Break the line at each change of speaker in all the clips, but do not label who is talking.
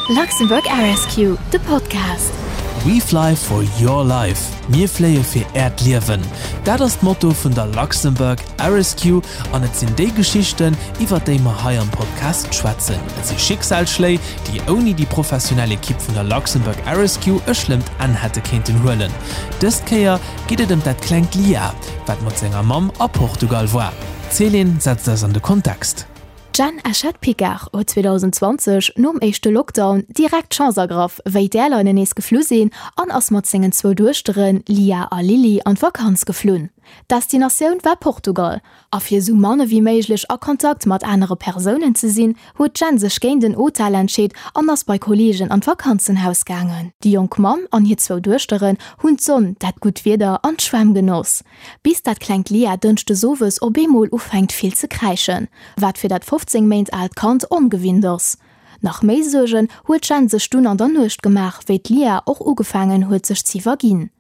Luxembourg Air Rescue, de Podcast.
We fly for your life, Mir fléie fir Äert Liewen. Dat ass d'Motto vun der Luxembourg Air Rescue an et sinn déi Geschichten, iwwer déi mer hei am Podcast schwätzen. Et si Schicksalsschléi, déi ouni déi professionell Ekipp vun der Luxembourg Air Rescue e schlëmmt Enn hätte kéinten huelen. Dëst Kéier geet et ëm dat klengt Lia, wat mat senger Mamm a Portugal war. D'Céline setzt eis an de Kontext.
D'Jeanne Eschette-Picard huet 2020, nom éischte Lockdown, direkt d'Chance ergraff, wéi d'Airlinen nees geflu sinn, an ass mat sengen zwou Duechteren, Lia a Lily, an d'Vakanz geflunn. D'Destinatioun war Portugal, a fir esou mann ewéi méiglech a Kontakt mat anere Persounen ze sinn, huet d'Jeanne sech géint en Hotel entscheet an ass bei Kolleegen an d'Vakanzenhaus gaangen. Déi jonk Mamm an hir zwou Duechteren hunn d'Sonn, dat gutt Wieder an d'Schwämm genoss. Bis dat klengt Lia dënschdes owes op eemol ufänkt vill ze kräischen, wat fir dat 15 Méint aalt Kand ongewinnt ass. Nach méi Suergen huet d'Jenn sech dunn an der Nuecht gemaach, wéi d'Lia och ugefaangen huet sech z'iwwerginn.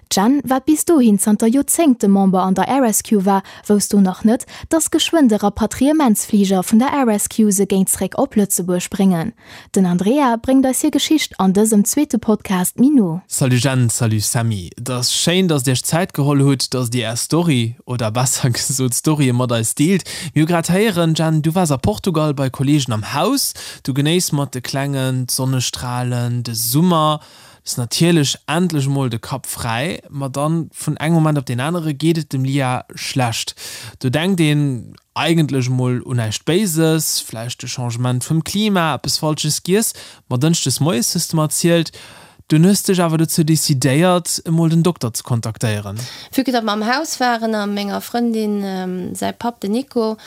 D'Jenn, wat bis dohin zanter Joerzéngte Member an der Air Rescue war, wousst do nach net, dass geschwënn de Rapatriementsfliger vun der Air Rescue se géing zréck op Lëtzebuerg bréngen. Den Andrea bréngt eis hir Geschicht an dësem zweete Podcast méi no.
Salut Jenn, salut Sammy. Et ass schéin, dass dir iech Zäit geholl hutt, dass dir är Story, oder besser gesot Storye mat eis deelt. Mir hu grad héieren, Jenn, du waars a Portugal bei Kollegen am Haus. Du genéiss mat de Klengen d'Sonnestralen, de Summer. Hues natierlech endlech emol de Kapp fräi. Ma dann, vun engem Moment op deen anere geet et dem Lia schlecht. Do denkt een eigentlech emol un näischt Béises, vläicht de Changement vum Klima, eppes Falsches giess, ma dënschdes moies hues de mer erzielt, dunn hues dech awer dozou decidéiert, emol den Dokter ze kontaktéieren.
Vue que datt mer am Haus waren a menger Frëndin säi Papp, den Nico,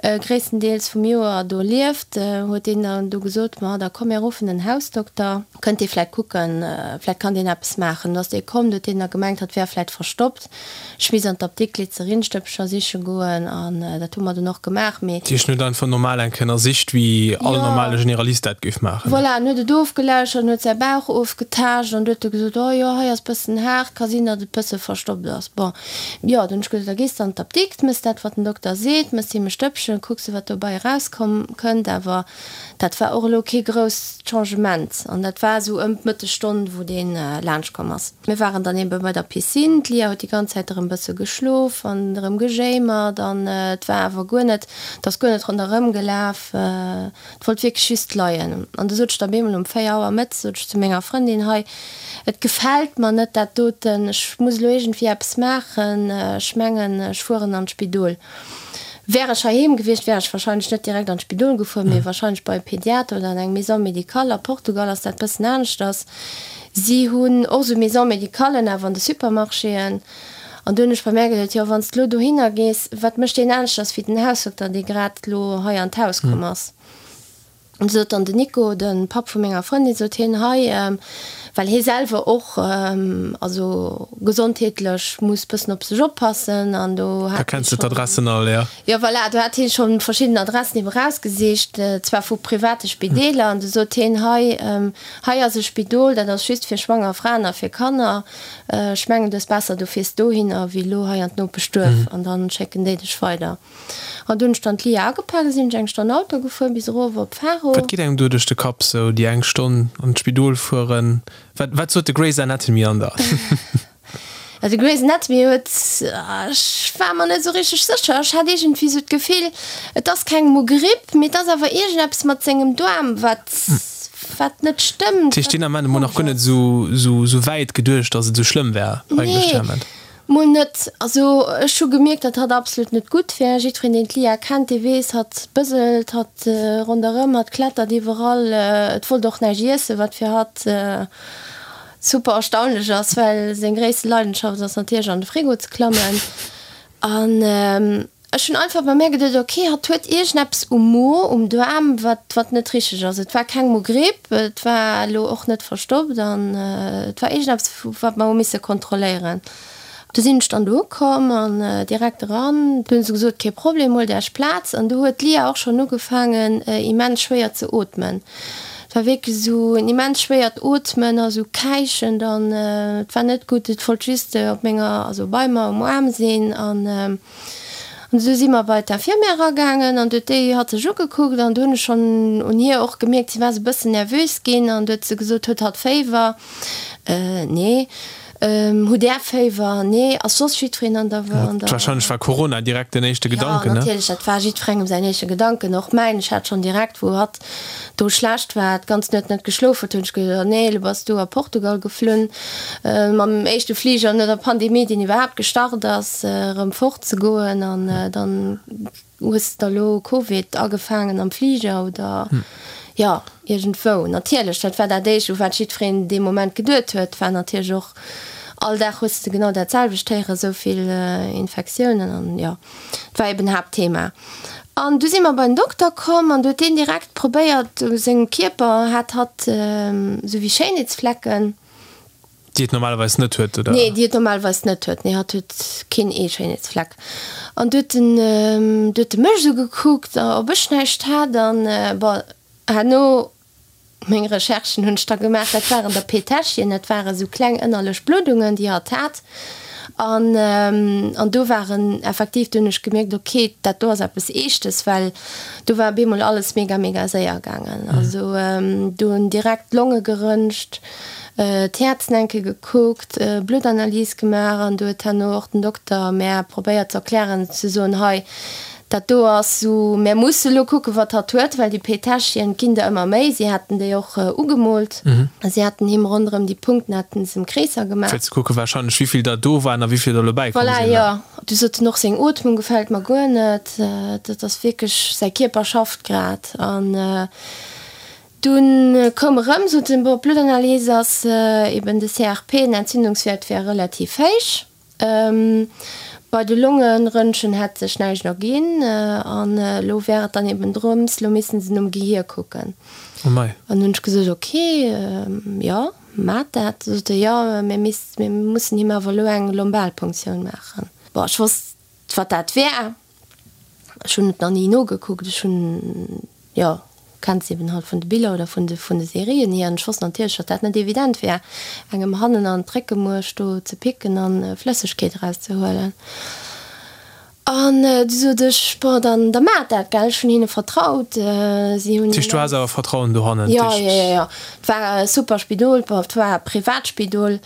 gréisstendeels vum Joer do lieft, huet deen dann du gesot, Ma da komm mir ruffen den Hausdokter, kënnt dee vläicht kucken, vläicht kann deen eppes maachen. Du ass dee komm, du huet deen da gemengt, hatt wär vläicht verstoppt. Ech misst an d'Apdikt Glyzerinstëppcher siche goen an dat hu mer dunn och gemaach, mee.
Dat heescht, en huet einfach normal eng Kéier ënnersicht, wéi all normale Generalist dat géif maachen?
Voilà, en huet et ofgelauschtert, en huet säi Bauch ofgetaascht an du huet e gesot, oh jo, hei ass bëssen haart, ka sinn, datt et bësse verstoppt ass. Bon, jo, dunn hunn ech gesot, da gees de an d'Apdikt, mëss dat, wat den Dokter seet, mëss him e Stëppchen, kucks de, wat dobei erauskomm kënnt. Awer dat war och elo kee grousst Changement an dat war esou ëm d'Mëttesstonn, wou dee laanscht komm ass. Mir waren dann ebe bei der Piscine. D'Lia huet déi ganz Zäit erëm bësse geschlof an erëm gejéimert an et war awer guer net, et ass guer net ronderëm gelaf. Et wollt wierklech just leien. An du sot ech da bemol um 4 Auer mëttes, sot ech zu menger Frëndin, Hei, et gefält mer net dat doten, ech muss elo iergendwéi eppes maachen, ech mengen, ech fueren an d'Spidol. Wär ech heiheem gewiescht, wär ech wahrscheinlech net direkt an d'Spidol gefuer, mee wahrscheinlech bei e Pediater oder an eng Maison médicale. A Portugal ass dat bëssen aneschters. Si hunn och esou Maison-médicallen awer an de Supermarchéen. An do hunn ech bei mär geduet, jo, wann s de elo dohinner gees, wat mécht deen aneschters wéi den Hausdokter, dee grad elo hei an d'Haus komm ass? An du sot dann den Nico, de Papp vu menger Frëndin, sot hien, hei, well hie selwer och also gesondheetlech muss bëssen op sech oppassen an do
hat hie schonn. D'Adressen all,
jo. Jo, voilà, do hat hie scho verschidden Adressen ebe rausgesicht, zwar vu private Spideeler. An du sot hien, hei, Hei ass e Spidol, dat ass just fir schwanger Fraen a fir Kanner. Ech mengen, du hues besser, du fiers dohinner, wéi elo hei an d'Nopeschduerf, an dann schécken déi dech weider. An du hunn ech dann d'Lia agepak a sinn ech eng Stonn Auto gefuer bis erof op Faro.
Wat geet engem do duerch de Kapp, sou déi eng Stonn an d'Spidol fueren? Wat, wat sot de Grey's Anatomy an der?
De Grey's Anatomy huet, ech war mer net esou richteg sécher, ech hat iergendwéi esou d'Gefill, et ass keng Mogripp, mee et ass awer iergendeppes mat sengem Doarm, wat, wat net stëmmt.
Dat heescht, deen Ament emol nach guer net esou, esou wäit geduecht, datt et esou schlëmm wär eigentlech deen Ament?
Nee, mol net. Also ech hu gemierkt, datt hatt absolut net gutt wär. Jiddwereen, deen d'Lia kennt, dee weess, hatt bëselt, hatt ronderëm, hatt klettert iwwerall, et wollt och näischt iessen, wat fir hatt Super erstaunlech ass, well seng gréisste Leidenschaft ass natierlech an de Frigo ze klammen. An ech hunn einfach bei mär geduet, ok, hatt huet iergendeppes um Mo, um Daarm, wat, wat net richteg ass. Et war keng Mogripp, et war elo och net verstoppt an et war iergendeppes, wat mer hu misse kontrolléieren. Du sinn ech dann do ukomm an direkt eran. Du hunn se gesot, kee Problem, huelt Äech Plaz. An du huet d'Lia och schonn ugefaangen immens schwéier ze ootmen. Et war wierklech esou en immens schwéiert Ootmen a sou käichend an et war net gutt. Et wollt just op menger, also bei mer um Aarm sinn an. An esou si mer bei d'Infirmière eragaangen an du huet déi hatt sech ugekuckt an du hunn ech schonn un hir och gemierkt, si war esou e bëssen nervös ginn an du huet se gesot, huet hatt Féiwer? Nee. Hutt Där Féiwer? Nee. Ass soss jiddwereen an der, an
der. Wahrscheinlech war Corona direkt den éischte Gedanken, ne?
Jo, natierlech, dat war jiddwerengem säin éischte Gedanken, och mäin. Ech hat schonn direkt, wou hatt do schlecht war, d'ganz Nuet net geschlof huet, hunn ech geduecht, oh nee, elo bass du a Portugal geflunn, mam éischte Fliger no der Pandemie, deen iwwerhaapt gestart ass, erëm fort ze goen an dann hues de der elo Covid agefaangen am Fliger oder jo iergendwou. Natierlech, dat war dat éischt, u wat jiddwereen dee Moment geduet huet, war natierlech och, all Dag hues de genau dat selwecht héieren, esou vill Infektiounen an jo. Dat war eben Haaptthema. An du si mer bei den Dokter komm an du huet deen direkt probéiert, u sengem Kierper hat hatt esou wéi Schéinheetsflecken.
Déi et normalerweis net huet, oder?
Nee, déi et normalerweis net huet. Nee, hatt huet keen ee Schéinheetsfleck. An du huet en, du huet e mech esou gekuckt, ob ech näischt hat an bon, herno Meng Recherchen hunn ech da gemaach, dat waren der Peteschien, dat ware sou kleng ënnerlech Bluddungen, déi hatt hat. An, an do waren effektiv, do hunn ech gemierkt, ok, dat do ass eppes Eeschtes, well do war op eemol alles mega, mega séier gaangen. Also do hunn direkt d'Longe geröntgt, d'Häerz enke gekuckt, Bluttanalys gemaach an do huet herno och den Dokter mär probéiert ze erklären, ze soen, hei, Dat do ass sou, mär musse lo kucken, wat hatt huet, well déi Petäschchen ginn der ëmmer méi. Si haten déi och ugemoolt. Si haten him ronderëm déi Punkten haten se em Kreesser gemaach.
Fir ze kucken warscheinlech, wéivill der do waren a wéivill der elo bäikomm
Voilà,
sinn.
jo. Du sot en och, seng Ootmung gefält mer guer net. Dat ass wierklech, säi Kierper schafft grad. An dunn koum erëm, sot en, bon, d'Bluttanalyse ass eben de CRP, den Entzündungswäert wär relativ héich. Bei de Longeröntgen hätt sech näischt erginn an elo wär et dann eben drëms, elo missten se nom Gehier kucken.
Oh mei.
An hunn ech gesot, ok, jo, maacht dat. Da sot e, jo, mir misst, mir mussen him awer elo eng Lombalpunktioun maachen. Bon, ech wosst, wat dat wär. Ech hunn et nach ni nogekuckt. Ech hunn, jo, kennt se eben halt vun de Biller oder vun de vun de Serien hier. An ech wosst natierlech, datt dat net evident wär, engem hannen an d'Réckemuerch do ze picken an Flëssegkeet erauszehuelen. An du sot ech, bon, dann da maacht dat, gell. Ech hunn hinne vertraut. Si hunn.
Dat heescht, du has awer Vertrauen dohannen?
Jo, jo, jo, jo. Et war e super Spidol. Bon, et war e Privatspidol.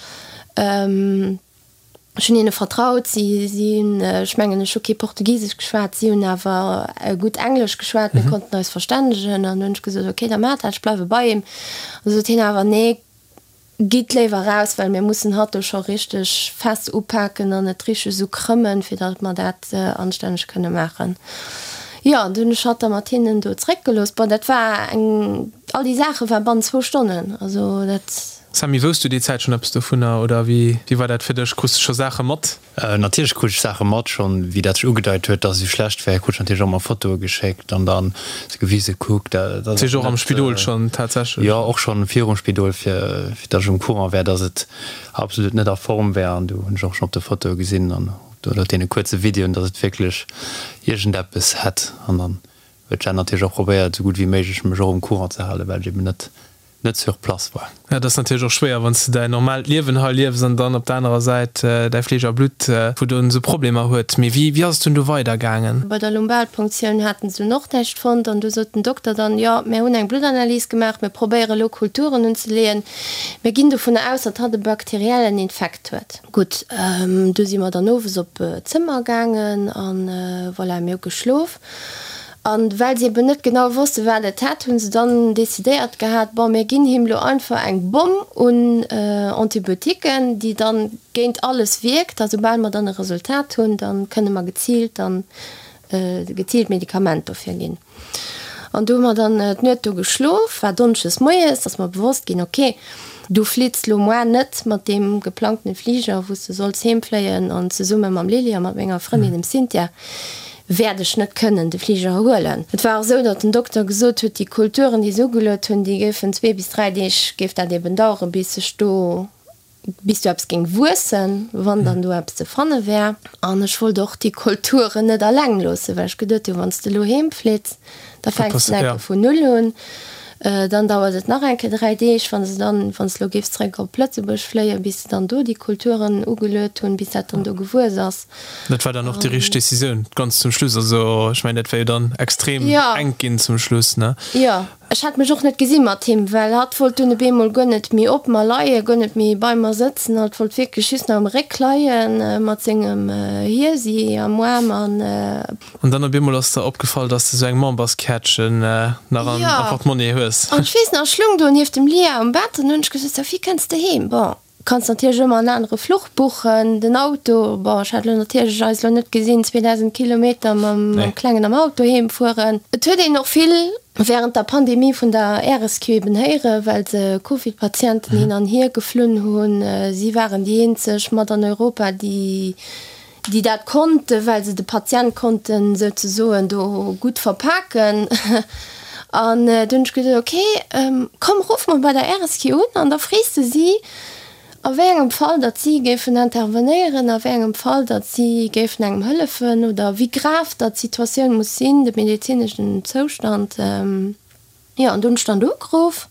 Ech hunn hinne vertraut. Si, si hunn, ech mengen, ech hu kee Portugisesch geschwat, si hunn awer gutt Englesch geschwat, mir konnten eis verstännegen. An du hunn ech gesot, ok, da maacht dat, ech bleiwe bei him. An du sot hien awer, nee, gitt léiwer raus, well mir mussen hatt do scho richteg fest upaken an et richteg esou krëmmen, fir datt mer dat anstänneg kënne maachen. Jo, an du hunn ech hatt da mat hinnen do zeréckgelooss. Bon, dat war eng, all déi Saache war bannent zwou Stonnen, also dat.
Sammy, wousst du déi Zäit schonn eppes dovunner oder wéi war dat fir dech? Krus de scho Saache mat?
Natierlech krut ech Saache mat, schonn wéi dat sech ugedeit huet, dass et esou schlecht wär, krut ech natierlech och emmer Fotoe geschéckt an dann se gewise, kuck, dat
ass. Dat heescht och am Spidol schonn tatsächlech?
Jo, och schonn virum Spidol, fir fir dass ech um Courant wär, dass et absolut net a Form wär an du hunn ech och schonn op de Fotoe gesinn an oder deene kuerze Videoen, dass et wierklech iergendeppes hätt an dann huet d'Jenn natierlech och probéiert, esou gutt wéi méiglech mech och um Courant ze halen, well ech eben net net sur place war.
Ja, dat ass natierlech och schwéier, wann s de däin normaalt Liewen hei liefs an dann op der anerer Säit däi Fleesch a Blutt, wou dann esou Problemer huet. Mee wéi, wéi ass et dunn do weidergaangen?
Bei der Lumbalpunktioun haten se dunn och näischt fonnt an du sot den Dokter dann, jo, mir hunn eng Bluttanalys gemaach, mir probéiere elo Kulturen unzeleeën, mir ginn dovunner aus, datt hatt e bakteriellen Infekt huet. Gutt, du si mer dann owes op d'Zëmmer gaangen an voilà, mir hu geschlof. An well se eben net genau wosste wat et hätt, hunn se dann decidéiert gehat, bon mir ginn him lo einfach eng Bomm un Antibiotiquen, déi dann géint alles wierkt, a soubal mer dann e Resultat hunn, dann kënne mer geziilt dann geziilt Medikament dofir ginn. An du hu mer dann d'Nuet do geschlof, war Donneschdes moies, ass mer bewosst ginn, ok, du flitts lo moar net mat deem geplangtene Fliger, wou s de solls heemfléien an zesumme mam Lily a mat menger Frëndin, dem Cynthia, wäert ech net kënnen de Fliger huelen. Et war och esou, datt den Dokter gesot huet, déi Kulturen, déi se ugeluet hunn, déi géifen zwee bis dräi Deeg géif dat eben daueren, bis sech do, bis do eppes géing wuessen, wann dann do eppes ze fanne wär. An ech wollt och déi Kulturen net alleng loossen, well ech geduet hunn, wann s de elo heemflitts, da fänks de enke vun null un. Dann dauert et nach eng Kéier 3 Deeg, wann se dann, wann s de elo géifs zeréck op Lëtzebuerg fléien, bis se dann do déi Kulturen ugeluet hunn, bis dat dann do gewuess ass.
Dat war dann och déi richteg Decisioun ganz zum Schluss. Also ech mengen, dat wär jo dann extrem enk ginn zum Schluss, ne?
Jo, ech hat mech och net gesi mat him, well hatt wollt dunn op eemol guer net méi op mer leien, guer net méi bei mer sëtzen. Hatt wollt wierklech just nach am Réck leien, mat sengem Hiesi am Aarm an.
An dann op eemol ass der opgefall, dass de sou eng Memberskäertchen nach am Portemonnaie hues.
An ech weess nach, ech lung do nieft dem Lia um Bett an hunn ech gesot, Sophie, kënns de heem? Bon, kanns natierlech ëmmer en anere Fluch buchen, den Auto, bon, ech hat elo natierlech eis elo net gesinn, 2000 Kilometer mam Klengen am Auto heem fueren. Et huet een och vill während der Pandemie vun der RSQ eben héieren, well se Covid-Patienten hin an hier geflunn hunn. Si waren déi eenzeg mat an Europa, déi déi dat konnten, well se de Patient konnten souzesoen do gutt verpaken. An du hunn ech gesot, ok, komm ruff mol bei der RSQ un an da frees de si, a wéi engem Fall datt si géifen intervenéieren, a wéi engem Fall datt si géifen engem hëllefen oder wéi grav datt d'Situatioun muss sinn, de medezineschen Zoustand. Jo, an du hunn ech dann do ugeruff.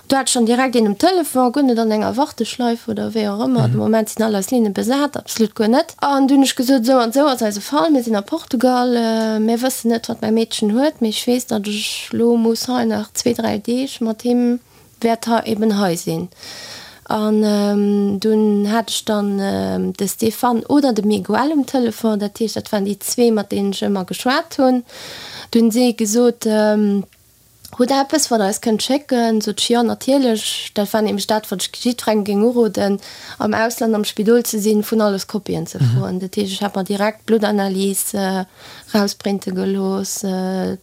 Do hat ech dann direkt een um Telefon, guer net an enger Warteschleif oder wéi och ëmmer. De Moment sinn all eis Linne besat, absolut guer net. An du hunn ech gesot, esou an esou ass eise Fall, mir sinn a Portugal, mir wëssen net, wat mäi Meedchen huet, mee ech weess, datt ech elo muss hei nach zwee, dräi Deeg mat him wäert hei eben hei sinn. An dunn hat ech dann de Stéphane oder de Miguel um Telefon, dat heescht, dat waren déi zwee, mat deenen ech ëmmer geschwat hunn. Du hunn si gesot, Hutt Der eppes, wat Der eis kënnt schécken? Sot ech, Jo, natierlech. Dat war nämlech dat, wat ech jiddwerengem géing uroden, am Ausland am Spidol ze sinn, vun alles Kopien ze froen. Dat heescht, ech hat mer direkt d'Bluttanalys rausprinte gelooss,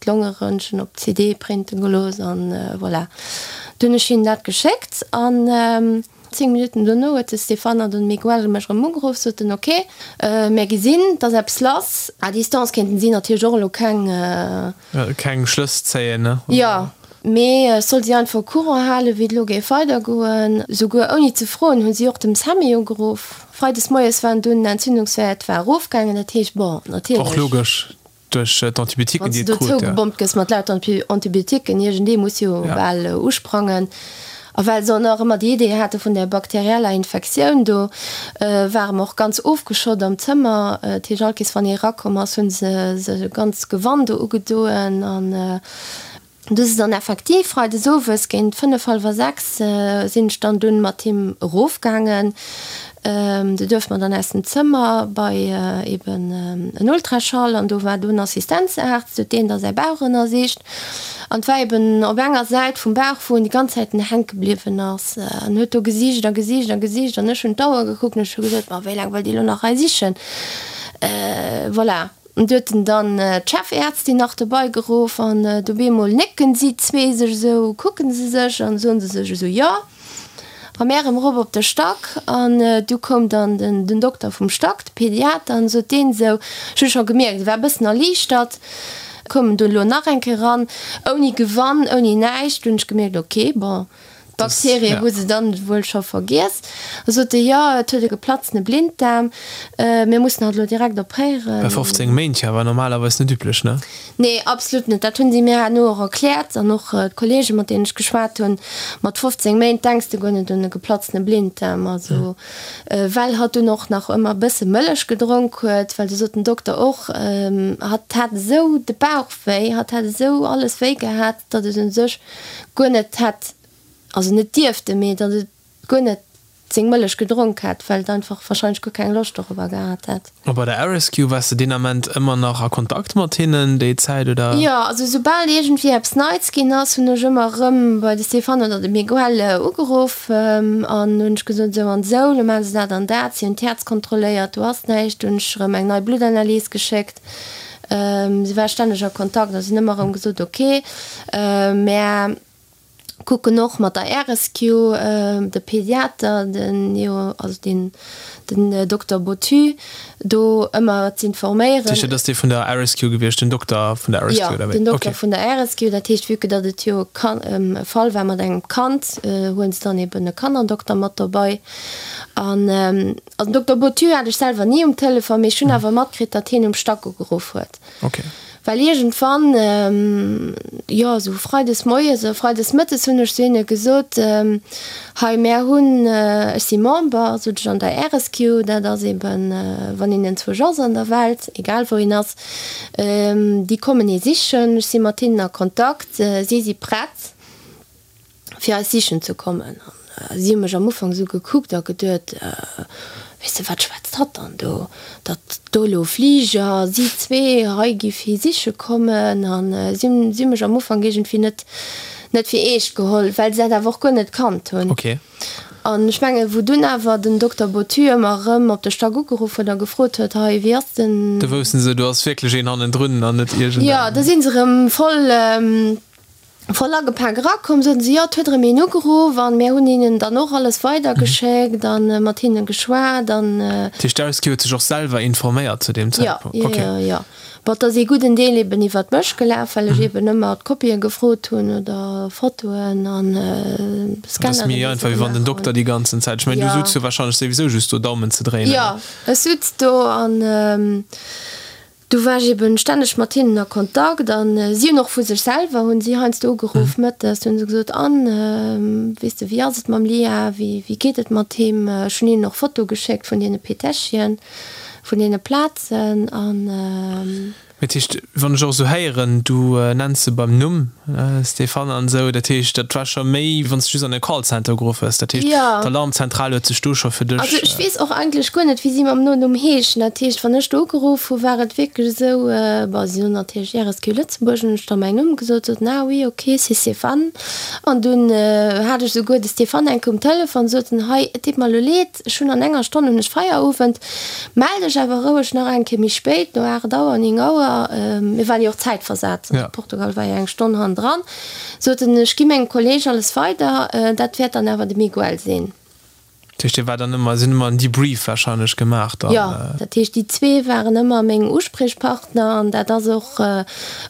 d'Longeröntgen op CD printe gelooss an voilà. Du hunn ech hinnen dat geschéckt an 10 Minutten dono huet de Stéphane an den Miguel mech erëm ugeruff, soten, ok, mär gesinn, et ass eppes lass. À distance kéinten si natierlech och elo keng.
Keng Schlëss zéien,
ne? Jo, mee ech soll si einfach au courant halen, wéi et elo géif weidergoen. Souguer ouni ze froen hu si och dem Sammy ugeruff. Freides moies waren dunn den Entzündungswäert war erofgaangen, dat heescht, bon, natierlech.
Och logesch, duerch d'Antibiotiquen,
déi et krut. Wann s de do zougebommt gëss mat lauter Antibiotiquen, iergendee muss jo bal usprangen. A well se och nach ëmmer déi Idee hate vun där bakterieller Infektioun do, ware mer och ganz ofgeschott am Zëmmer. Dat heescht, all Kees wann ee erakomm ass, hu se sech e ganz Gewan do ugedoen. An du si dann effektiv freides owes géint fënnef, hallwer 6 sinn ech dann dunn mat him erofgaangen. Du duerfte mer dann aus dem Zëmmer bei eben en Ultraschall an do war dunn Assistenzaarzt, huet deen da säi Bauch ënnersicht an et war eben op enger Säit vum Bauch, wou en déi ganz Zäiten hänke bliwwen ass an huet do gesicht a gesicht a gesicht an ech hunn d'Auer gekuckt an ech hu gesot, ma wéi laang wëllt Dir elo nach hei sichen? Voilà. An du huet en dann d'Chefärztin nach dobei geruff an do bemol nécken si zwee sech esou, kucken se sech an soen se sech esou, jo. A mär erëm erop op de Stack an du koum dann den Dokter vum Stack, de Pediater, an sot deen esou, ech hu scho gemierkt, e war e bëssen erliichtert, koum en dunn elo nach eng Kéier eran, ouni Gewann, ouni näischt. Du hunn ech gemierkt, ok, bon, d'Bakterie hu se dann wuel scho vergiess. Da sot e, jo, et huet e geplatzene Blinddaarm, mir mussen hatt elo direkt opréieren.
Bei 15 Méint, jo, war normalerweis net üblech, ne?
Nee, absolut net. Dat hunn si mir herno och erkläert an och d'Kollegen, mat deenen ech geschwat hunn. Mat 15 Méint denks de guer net un e geplatzene Blinddaarm. Also, well hatt dunn och nach ëmmer e bësse Mëllech gedronk huet, well du sot den Dokter och, hatt hat esou de Bauch wéi, hatt hat esou alles wéi gehat, datt et u sech guer net hätt, also net dierfte, mee datt et guer net seng Mëllech gedronk hätt, well et einfach wahrscheinlech guer keng Loscht dorobber gehat hätt.
A bei der Rescue, waars de deen Ament ëmmer nach a Kontakt mat hinnen déi Zäit, oder?
Jo, also soubal iergendwéi eppes Neits ginn ass, hunn ech ëmmer erëm bei de Stéphane oder de Miguel ugeruff an hunn ech gesot, esou an esou, lo maache se dat an dat, si hunn d'Häerz kontrolléiert, do ass näischt, hunn ech erëm eng nei Bluttanalys geschéckt. Si war stänneg a Kontakt a si hunn ëmmer erëm gesot, ok, mä kucken och mat der RSQ, de Pediater, den jo, also deen, den Dokter Bottu do ëmmer z'informéieren.
Dat heescht, dat ass dee vun der RSQ gewiescht, den Dokter vun der RSQ,
oder wéi? Jo, den Dokter vun der RSQ. Dat heescht, vue que datt et jo e Fall war mat engem Kand, huele se dann eben e Kannerdokter mat dobei. An also den Dokter Bottu hat ech selwer ni um Telefon, mee ech hunn awer matkritt, datt hien um Stack ugeruff huet.
Okay.
Well iergendwann, jo esou freides moies oder freides mëttes hunn ech zu hinne gesot, hei mär hunn, ech si Member, sot ech, an der RSQ, dat ass eben, wann een enzwousch ass an der Welt, egal wou een ass, déi kommen ee sichen, ech si mat hinnen a Kontakt, si si prett. fir eis sichen ze kommen. An si hu mech am Ufank esou gekuckt a geduet, Weess de, wat schwätzt hatt dann do, datt do elo Fliger, si zwee hei gi fir siche kommen. An si hunn, si hu mech am Ufank iergendwéi net, net fir eescht geholl, well se dat awer och guer net kannt hunn.
Okay.
An ech mengen, wou dunn awer den Dokter Bottu ëmmer erëm op de Stack ugeruff huet a gefrot huet, Hei, wéi ass den.
Da woussten se, do ass wierklech een hannendrun an net iergendeng.
Jo, da si se erëm voll. Voll agepak erakomm, soten se, jo, et huet erëm een ugeruff an mär hunn hinnen dann och alles weidergeschéckt an mat hinne geschwat an.
Dat heescht, d'Ausgi huet sech och selwer informéiert zu deem Zäitpunkt?
Jo, jo, jo. Bon, et ass ee gudden Deel eben iwwert mech gelaf, well ech eben ëmmer d'Kopië gefrot hunn oder Fotoen an
Scanner. Dat ass méi einfach, wéi wann den Dokter déi ganzen Zäit, ech mengen, du sutz jo wahrscheinlech souwisou just do Daumen ze dréinen.
Jo, ech sutz do an. Du war ech eben stänneg mat hinnen a Kontakt an si hunn och vu sech selwer hunn si heiansdo ugeruff mëttes, hunn se gesot, An, weess de, wéi ass et mam Lia, wéi wéi geet et mat him? Ech hunn hinnen och Fotoe geschéckt vun deene Petäschchen, vun deene Plazen an.
Dat heescht, wann ech och esou héieren, du nenns se beim Numm, Stéphane an esou, dat heescht, dat war scho méi, wann s de just an e Callcenter ugeruff hues. Dat heescht, d'Alarmzentral huet sech do scho fir dech.
Also ech weess och eigentlech guer net, wéi si mam Nonumm heeschen. Dat heescht, wann ech do ugeruff hu war et wierklech esou, bon, si hunn natierlech RSQ Lëtzebuerg, hunn ech da mäin Numm gesot, soten, ah oui, ok, c'est Stéphane. An dunn hat ech esouguer de Stéphane eng Kéier um Telefon, sot en, hei, et deet mer elo leed, Ech hunn an enger Stonn hunn ech Feierowend. Mell dech awer roueg nach eng Kéier méi spéit, no 8 Auer, 9 Auer, mir waren jo och zäitversat, also Portugal war jo eng Stonn hannendran, sot en, ech gi mengem Kolleg alles weider, dat wäert dann awer de Miguel sinn.
Dat heescht, dir waart dann ëmmer, si hunn ëmmer en Debrief warscheinlech gemaach dann?
Jo, dat heescht, déi zwee waren ëmmer meng Uspriechpartner an dat ass och,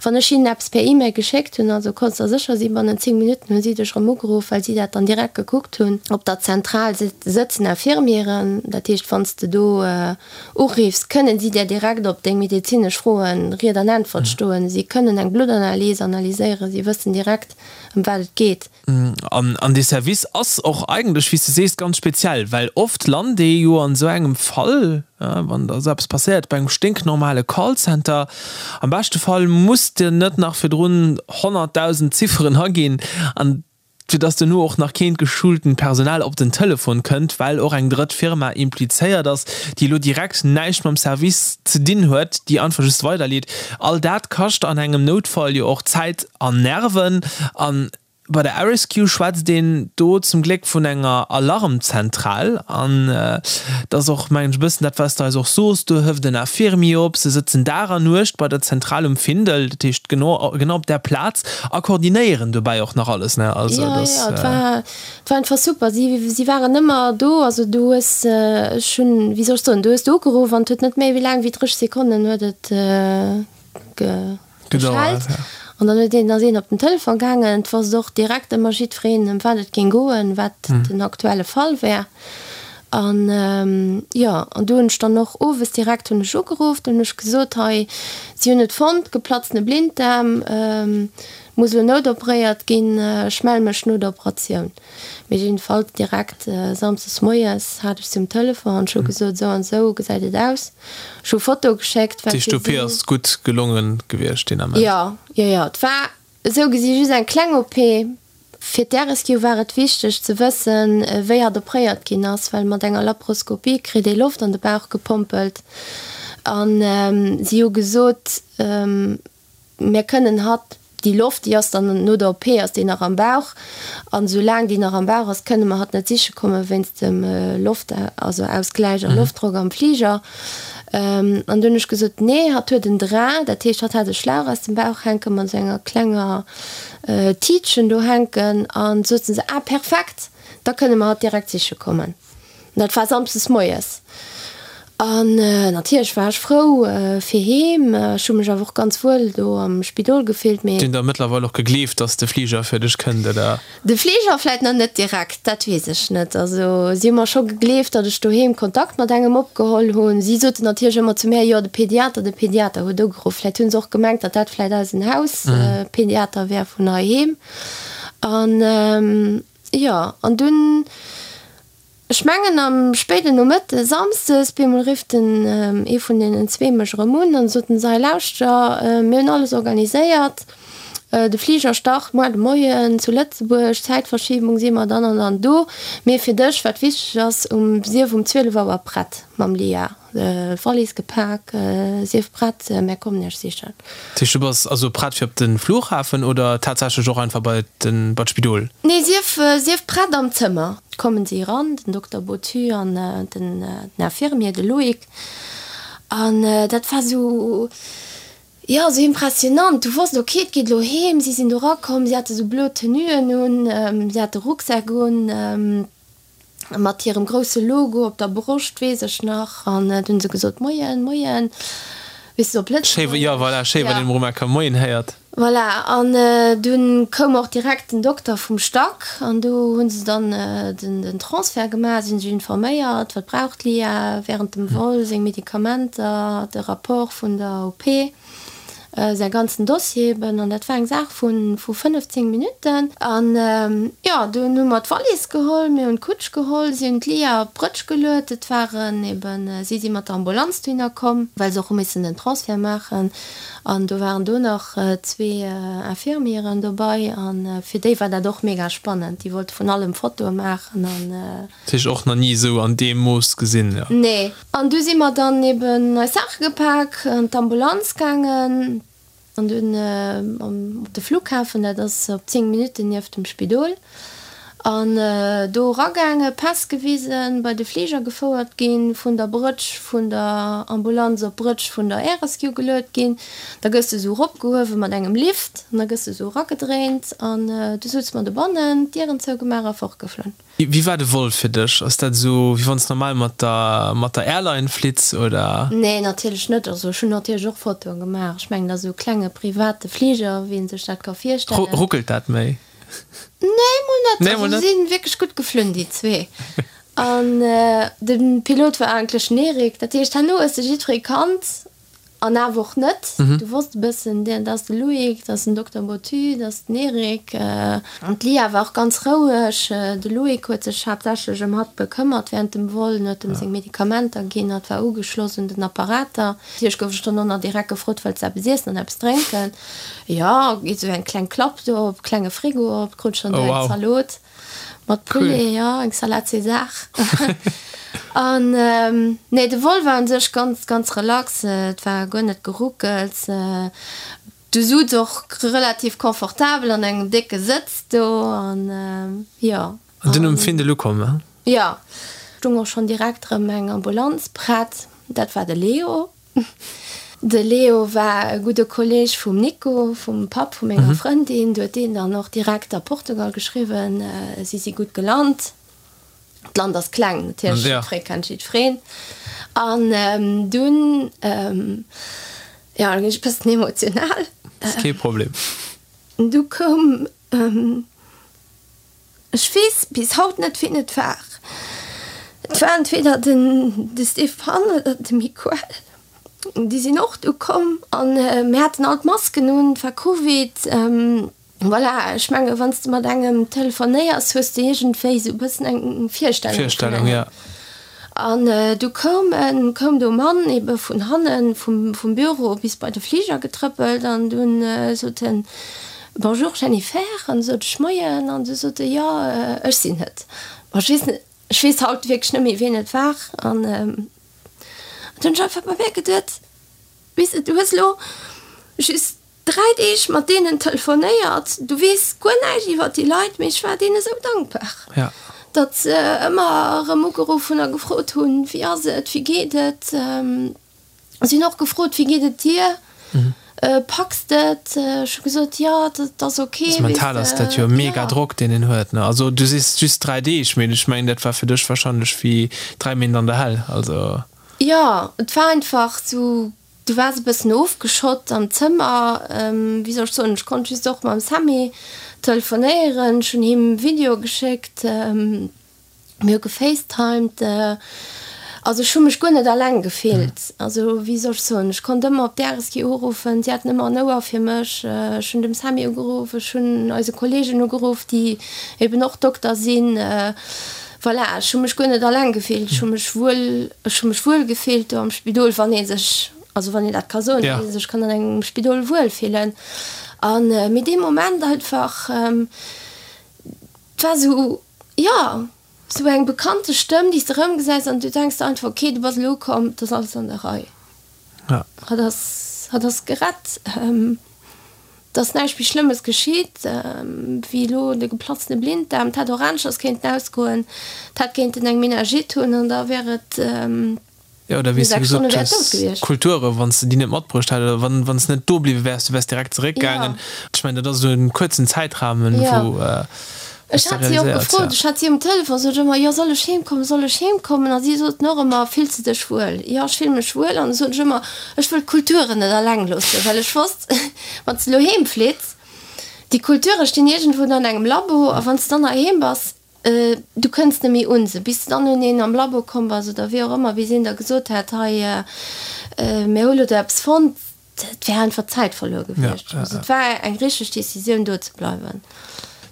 wann ech hinnen eppes per E-Mail geschéckt hunn, also konns der sécher sinn, bannent 10 Minutten hu si dech erëm ugeruff, well si dat dann direkt gekuckt hunn. Op der Zentral sëtzen Infirmieren, dat heescht, wann s de do uriffs, kënnen si där direkt op deng medezinesch Froen Ried an Äntwert stoen. Si kënnen eng Bluttanalys analyséieren, si wëssen direkt, ëm wat et geet.
An dee Service ass och eigentlech, wéi s de sees, ganz speziell, well oft lant ee jo an esou engem Fall, wann da esou eppes passéiert, bei engem sténknormale Callcenter. Am beschte Fall muss de net nach virdrun 100.000 Zifferen aginn, an fir dass duerno och nach keent geschultent Personal op den Telefon kënnt, well och eng drëtt Firma implizéiert ass, déi elo direkt näischt mam Service ze dinn huet, déi einfach just weiderleet. All dat kascht an engem Noutfall jo och Zäit an Nerven. An bei der RSQ schwätzt een do zum Gléck vun enger Alarmzentral. An dat ass och, mengen ech, e bëssen dat, wat s de eis och soos, do hëft en Infirmier op, se sëtzen Dag an Nuecht bei der Zentral um Findel, dat heescht genau, genau op där Plaz, a koordinéieren dobäi och nach alles, ne?
Also dat ass. Jo, jo, et war, et war einfach super. Si, si waren ëmmer do. Also du hues, ech hunn, wéi soll ech soen, du hues do ugeruff an et huet net méi wéi laang wéi 30 Sekonnen huet et ge. Geschellt an dann huet een, ass een op den Telefon gaangen. Et wosst och direkt ëmmer jiddwereen, ëm wat et géing goen, wat den aktuelle Fall wär. An jo, an du hunn ech dann och owes direkt hunn ech ugeruff, dunn hunn ech gesot, hei, si hunn et fonnt, geplatzene Blinddaarm, muss elo noutoperéiert ginn, ech melle mech no der Operatioun. Mee jiddefalls direkt samsdes moies hat ech se um Telefon an ech hu gesot, esou an esou gesäit et aus. Ech hu Fotoe geschéckt,
wat fir si. D'OP ass gutt gelonge gewiescht deen
Ament? Jo, jo, jo. Et war esou gesi just eng kleng OP. Fir d'RSQ war et wichteg ze wëssen, wéi hatt opréiert ginn ass, well mat enger Laparoskopie kritt ee Loft an de Bauch gepompelt. An si hu gesot, Mir kënnen hatt, déi Loft, déi ass dann no der OP ass déi nach am Bauch, an esou laang déi nach am Bauch ass, kënne mer hatt net siche komme wéinst dem Loft, also Ausgläich a Loftdrock am Fliger. An du hunn ech gesot, nee, hatt huet en Drain, dat heescht, hatt hat e Schlauch aus dem Bauch hänken, mat esou enger klenger Tiitchen do hänken. An soten se, ah perfekt, da kënne mer hatt direkt siche kommen. Dat war samsdes moies. An natierlech war ech frou fir heem. Ech hu mech awer och ganz wuel do am Spidol gefillt, mee.
Déi hunn der mëttlerweil och gegleeft, dass de Fliger fir dech kënnt, oder?
De Fliger vläit nach net direkt, dat weess ech net. Also si hu mer scho gegleeft, datt ech doheem Kontakt mat engem opgeholl hunn. Si soten natierlech ëmmer zu mär, jo de Pediater, de Pediater huet ugeruff. Vläit hu se och gemengt, datt dat vläit eisen Hauspediater wär vun heiheem. An jo, an dunn. Ech mengen am spéiden Nomëtte Samsdes, bemol rifft den ee vun deenen zwee mech erëm un an sot en, Sei lauschter, mir hunn alles organiséiert, de Fliger start muar de Moien zu Lëtzebuerg, Zäitverschiebung si mer dann an dann do, mee fir dech, wat wichteg ass, um sief um 12 Auer prett mam Lia. Wallis gepak, Sief prett, mär kommen iech sichen.
Dat heescht, du bass also prett fir op de Flughafen oder tatsächlech och einfach bei den, bei d'Spidol?
Nee, sief, sief prett am Zëmmer. Kommen si eran, den Dokter Bottu an den Infirmier, de Loïc. An dat war sou, jo, sou impressionant. Du wosst, ok, et geet elo heem. Si sinn do erakomm, si hate sou blo Tenuen un, si hate Rucksäck un. Mat hirem grousse Logo op der Broscht, weess ech nach. An du hunn se gesot, Moien, Moien, weess de, op
Lëtzebuergesch. Jo, voilà, schéi, wann een emol eng Kéier Moien héiert.
Voilà, an dunn koum och direkt den Dokter vum Stack an do hu se dann den Transfert gemaach, si hunn sech informéiert, wat brauch d'Lia während dem Vol, seng Medikamenter, de Rapport vun der OP. Säi ganzen Dossier eben, an dat war eng Saach vu 15 Minutten. An jo, dunn hu mer d'Wallis geholl, mir hunn d'Kutsch geholl, si hunn d'Lia op d'Brëtsch geluet. Et waren eben, si si mat der Ambulanz dohinner komm, well se och hu missen den Transfert maachen. An do waren do nach zwee Infirmieren dobei, a fir déi war dat och mega spannend. Déi wollte vun allem Fotoe maachen an.
Dat heescht och nach ni esou an deem Mooss gesinn, jo?
Nee. An du si mer dann eben eis Saache gepak, an d'Ambulanz gaangen an dunn op de Flughafen, dat ass op 10 Minutten nieft dem Spidol, an do eragaangen, Päss gewisen, bei de Fliger gefouert ginn, vun der Brëtsch vun der Ambulanz op d'Brëtsch vun der Air Rescue geluet ginn. Da gëss de esou eropgehuewe mat engem Lift an da gëss de esou eragedréint an du sutz mer dobannen, d'Dieren zougemaach a fortgeflunn.
Wéi war de Vol fir dech? Ass dat esou wéi wann s normal mat der mat der Airline flitts oder?
Nee natierlech net. Also ech hunn natierlech och Fotoen gemaach. Ech mengen dat ass esou e klenge private Fliger wéi een sech dat ka virstellen.
Ruckelt dat méi?
Nee mol net. Nee mol net. Also si sinn wierklech gutt geflunn déi zwee. An de Pilot war eigentlech den Eric. Dat heescht herno hues de jiddweree kannt. An awer och net. Du wosst e bëssen, dat ass de Loïc, dat ass den Dokter Bottu, dat ass den Eric. An d'Lia war och ganz roueg. De Loïc huet sech haaptsächlech ëm hatt bekëmmert wärend dem Vol, en huet em seng Medikamenter ginn, hatt war ugeschloss un den Apparater. Natierlech gouf ech dono nach direkt gefrot, Wëlls de eppes iessen an eppes drénken? Jo, geet esou eng kleng Klapp do op, klenge Frigo op, krut ech dann do eng Zalot. Mat Poulet, jo, eng Salade César. An nee, de Vol war un sech ganz, ganz relax. Et war guer net geruckels. Du sutz och relativ confortabel an engem décke Sëtz do an jo.
An dunn um Findel ukomm, he?
Jo, stung och schonn direkt erëm eng Ambulanz prett. Dat war de Leo. De Leo war e gudde Kolleeg vum Nico, vum Papp vu menger Frëndin. Du huet deen dann och direkt a Portugal geschriwwen, si si gutt gelant. D'Land ass kleng, natierlech, jiddweree kennt jiddwereen. An dunn, jo, da ginn ech e bëssen emotional.
Ass kee Problem.
Du koum. Ech weess bis haut net wien et war. Et war entweder den de Stéphane oder de Miquel. Déi sinn och du komm an mir haten all d'Masken un, et war Covid. Voilà, ech menge wann s de mat engem telefonéiers, hues de iergendwéi esou e bëssen eng Virstellung vun engem.
Virstellung, ja.
An du koum en, koum do Mann ebe vun hannen vum Büro bis bei de Fliger getrëppelt an dunn sot en, Bonjour Jennifer. An du sot ech, Moien. An du sot e, Jo, ech sinn et. Bon, ech weess net, ech weess haut wierklech net méi wien et war. An du hunn ech einfach bei mär geduet, Weess de, du hues elo just 3 Deeg mat deenen telefonéiert, du weess guer näischt iwwert déi Leit, mee ech war deene sou dankbar, datt se ëmmer erëm ugeruff hunn a gefrot hunn, wéi ass et, wéi geet et. Si hunn och gefrot, wéi geet et dir, packs de et? Ech hu gesot, jo, dat ass ok.
Also mental ass dat jo e mega Drock, deen een huet, ne? Also du sees just 3 Deeg, mee ech mengen, dat war fir dech warscheinlech wéi 3 Méint an der Hell, also.
Jo, et war einfach sou, du waars e bëssen ofgeschott am Zëmmer, wéi soll ech soen, ech konnt just och mam Sammy telefonéieren, ech hunn him Video geschéckt, mir hu gefacetimed, also ech hu mech guer net alleng gefillt, also wéi soll ech soen, ech konnt ëmmer op d'RSG uruffen, si haten ëmmer en Ouer fir mech, ech hunn dem Sammy ugeruff, ech hunn eise Kollegen ugeruff, déi eben och Dokter sinn, voilà, ech hu mech guer net alleng gefillt, ech hu mech wuel, ech hu mech wuel gefillt do am Spidol, wann ee sech, also wann een dat ka soen, datt ee sech kann an engem Spidol wuel fillen an, mee dee Moment einfach, et war esou. Jo, sou eng bekannte Stëmm, déi s de erëmgesäis an du denks der einfach, ok, du bass elo ukomm, et ass alles an der Rei. Hatt ass, hatt ass gerett, et ass näischt méi Schlëmmes geschitt, wéi elo de geplatztene Blinddaarm. Et hätt och aneschters kéinten ausgoen, et hätt kéinten eng Meningite hunn an da wär et.
Jo, oder wéi s du gesot hues, Kulture, wann s de déi net matbruecht hätt oder wann s de net do bliwwe wäers, du wäers direkt zeréckgaangen. Ech mengen, dat ass esou e kuerzen Zäitrahmen, wou
s
de
Ech hat si och
realiséiers,
gefrot,
ja.
ech hat si um Telefon, sot ech ëmmer, jo, soll ech heem kommen, soll ech heem kommen? A si soten och ëmmer, Fills de dech wuel? Jo, ech fille mech wuel. An da sot ech ëmmer, ech wëll d'Kulturen net alleng loossen, well ech wosst, wann s de elo heem flitts, déi Kulture stinn iergendwou an engem Labo, a wann s de dann heiheem bass, Du kënns net méi un se, bis de dann un een am Labo komm bass oder wéi och ëmmer, bis een der gesot hätt, hei, mir hu lo do eppes fonnt. Et wär einfach Zäit verluer gewiescht. Also et war eng richteg Decisioun, do ze bleiwen.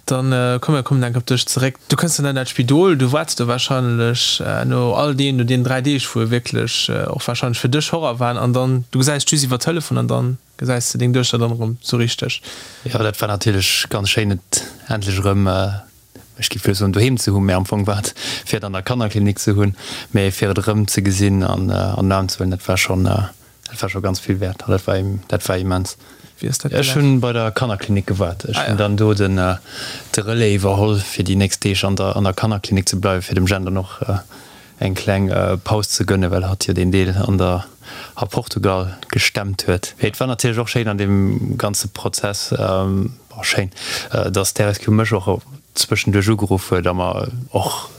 Dann komm, mir kommen enk op dech zeréck. Du kënns dann an dat Spidol, du waarts do warscheinlech no all deem, no deenen 3 Deeg, wou wierklech och warscheinlech fir dech Horror waren, an dann, du gesäis just iwwer Telefon an dann Gesäis de deng Duechter dann erëm sou richteg?
Jo, dat war natierlech ganz schéin, et endlech erëm, ech géif elo soen doheem ze hunn, mä am Fong war et fir et an der Kannerklinik ze hunn, mä fir et erëm ze gesinn an an den Aarm ze huelen, dat war schonn, dat war scho ganz vill wäert an dat war, dat war immens.
Wéi ass dat
Ech
gelaf?
hunn bei der Kannerklinik gewaart. Ech hunn dann do den de Relais iwwerholl, fir déi nächst Deeg an der an der Kannerklinik ze bleiwen, fir dem Jen dann och eng kleng Paus ze gënnen, well hatt jo deen Deel an der a Portugal gestemmt huet. Et war natierlech och schéin an deem ganze Prozess, bon schéin, datt d'RSQ mech och zwëschenduerch ugeruff huet a mer och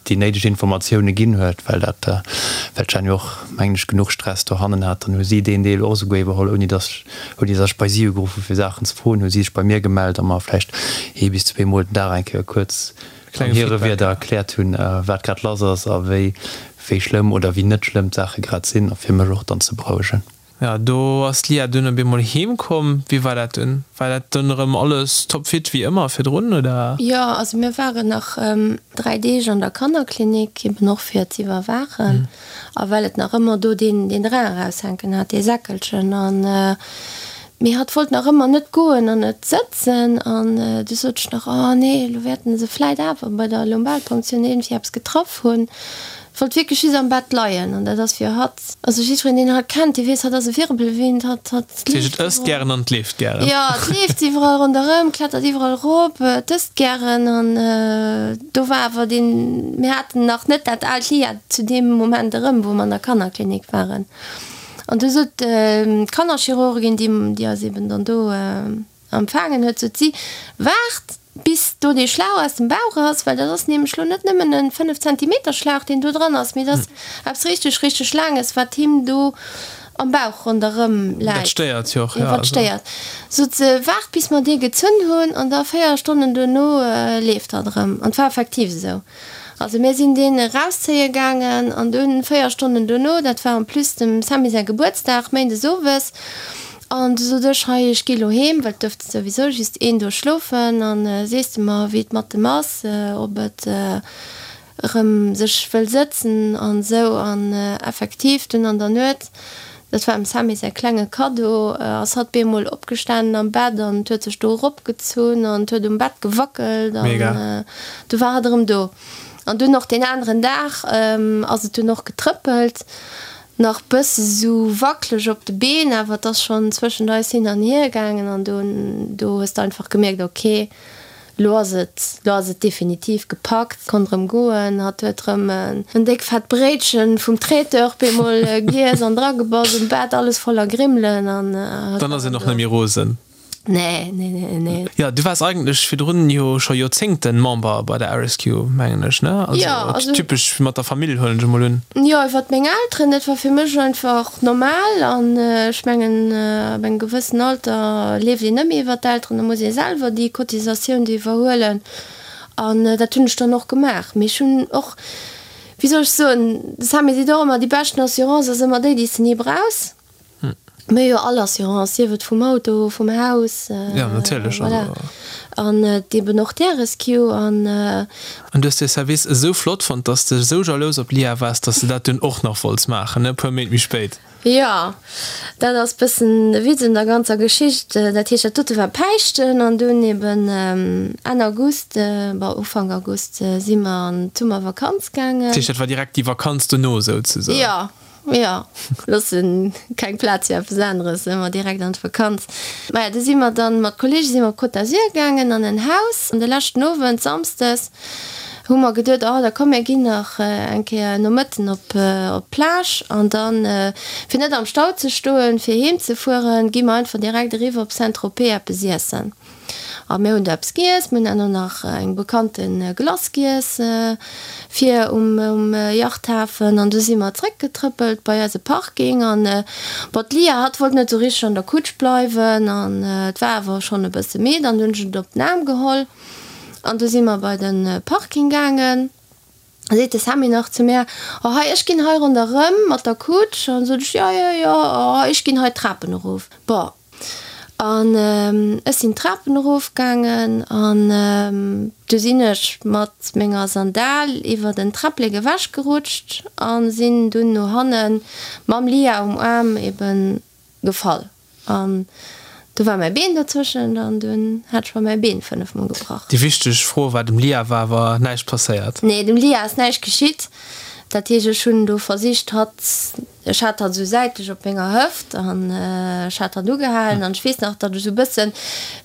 déi néideg Informatioune ginn huet, well dat, well d'Jenny jo och, mengen ech, genuch Stress dohannen hat. Dann hu si deen Deel och esouguer iwwerholl, ouni datt ech, ouni datt ech bei si ugeruff hu fir Saachen ze froen, hu si sech bei mir gemellt a mer vläicht ee bis zweemol den Dag eng Kéier kuerz an hire Wierder erkläert hunn, wat grad lass ass a wéi wéi schlëmm oder wéi net schlëmm d'Saache grad sinn, a fir mech och dann ze berouegen.
Jo, do ass d'Lia dunn op eemol heem komm. Wéi war dat dunn? War dat dunn erëm alles topfit wéi ëmmer virdrun, oder?
Jo, also mir waren nach 3 Deeg an der Kannerklinik, eben och fir ze iwwerwaachen a well et nach ëmmer do deen deen Drain eraushänken hat, dee Säckelchen. An Mee hatt wollt nach ëmmer net goen an net sëtzen. An du sot ech nach, Oh nee, elo wäerten se vläit awer bei der Lumbalpunktioun iergendwéi eppes getraff hunn. Wollt wierklech just am Bett leien. An dat ass fir hatt, also jiddwereen, deen hatt kennt, dee weess, hatt ass e Wirbelwind, hatt, hatt
Dat heescht, et ësst gären an et leeft gären.
Jo, et leeft iwwerall ronderëm, klettert iwwerall erop, et ësst gären. An do war awer deen, mir haten nach net dat aalt Lia zu deem Moment erëm, wou mer an der Kannerklinik waren. An du sot d'Kannerchirurgin, déi déi eis eben dann do empfaangen huet, sot si, Waart bis do dee Schlauch aus dem Bauch ass, well dat ass nämlech lo net nëmmen e 5 Zentimeter Schlauch, deen do dran ass, mee dat ass eppes richteg, richteg Laanges, wat him do am Bauch ronderëm läit.
Dat stéiert jo och,
jo. Wat stéiert. Sot se, Waart bis mer dee gezunn hunn an da 4 Stonnen duerno leeft hatt erëm. An et war effektiv esou. Also mir sinn deen erauszéie gaangen an dunn 4 Stonnen dono, dat war en plus dem Sammy säi Gebuertsdag, méindes owes, an du sot ech, hei ech gi lo heem, well et duerft souwisou just een do schlofen, an sees de mer wéi et mat dem ass, ob et erëm sech wëll sëtzen an esou. An effektiv dunn an der Nuet Dat war dem Sammy säi klenge Kaddo. Ass hatt bemol opgestanen am Bett an huet sech do eropgezunn an huet um Bett gewackelt an du war hatt erëm do. An dunn och deen aneren Dag ass et dunn och getrëppelt, nach bësse sou wackeleg op de Been, awer et ass schonn zwëschent eis hin an hier gaangen an do do hues de einfach gemierkt, ok, Lo ass et, lo ass et definitiv gepackt, konnt rëm goen. Hatt huet rëm en déck fett Bréitchen vum Traiteur bemol giess an dragebass, um Bett alles voller Grimmelen an
hatt Dann ass een och net méi rosen.
Nee, nee, nee, nee.
Jo, du waars eigentlech virdrun jo scho Joerzéngten Member bei der RSQ, mengen ech, ne? Also,
Ja, also.
Typesch mat der Famill, huelen ech emol un.
Jo, iwwert meng Elteren, dat war fir mech einfach normal an ech mengen, ab engem gewëssen Alter leeft een net méi iwwert d'Elteren, da muss ee selwer déi Cotisatioun do iwwerhuelen an dat hunn ech dann och gemaach. Mee ech hunn och, wéi soll ech soen, de Sammy seet och ëmmer, déi beschten Assurance ass ëmmer déi, déi s de ni brauchs. Mir hu jo all Assurance, sief et vum Auto, vum Haus,
Ja, natierlech.
voilà. An eben och d'Air-Rescue an.
An du hues dee Service esou flott fonnt, dass de esou jalous op d'Lia waars, dass de dat dunn och nach wollts maachen, e puer Méint méi spéit.
Jo, dat ass bëssen de Witz un der ganzer Geschicht. Dat heescht, dat dote war Päischten an dunn eben Enn August, bon, Ufank August si mer an d'Summervakanz gaangen.
Dat heescht, dat war direkt déi Vakanz dono souzesoen?
Jo, Jo, loossen keng Plaz fir eppes aneres, ëmmer direkt an d'Vakanz. Maja, du si mer dann mat Kollege si mer op Côte d'Azur gaangen an en Haus. An de leschten Owend, Samsdes, hu mer geduet, oh da komm mir ginn nach eng Kéier Nomëtten op op d'Plage an dann, fir net am Stau ze stoen, fir heem ze fueren, gi mer einfach direkt eriwwer op Saint-Tropez eppes iessen. A mir hunn do eppes giess, mir hunn herno nach eng bekannte Glace giess fir um Yachthafen an du si mer zréckgetrëppelt bei eise Parking an bon d'Lia hatt wollt net sou richteg an der Kutsch bleiwen an et war awer schonn e bësse midd an du hunn ech et op den Aarm geholl an du si mer bei de Parking gaangen. Da seet de Sammy nach zu mär, Oh hei, ech ginn hei ronderëm mat der Kutsch. An sot ech, Jo, jo, jo, oh ech ginn hei d'Trapen erof. Bon, an ech sinn d'Trapen erofgaangen an du sinn ech mat menger Sandal iwwer en Träpplek ewechgerutscht a sinn dunn no hanne mam Lia um Aarm eben gefall. An du war mäi Been dozwëschent an dunn hat ech mer mäi Been 5 mol gebrach.
Déi wichteg Fro war, dem Lia war awer näischt passéiert?
Nee, dem Lia ass näischt geschitt. Dat heescht, ech hunn do versicht, hatt, ech hat hatt esou säitlech op menger Hëft an ech hat hatt ugehalen an ech weess nach, datt ech esou e bëssen,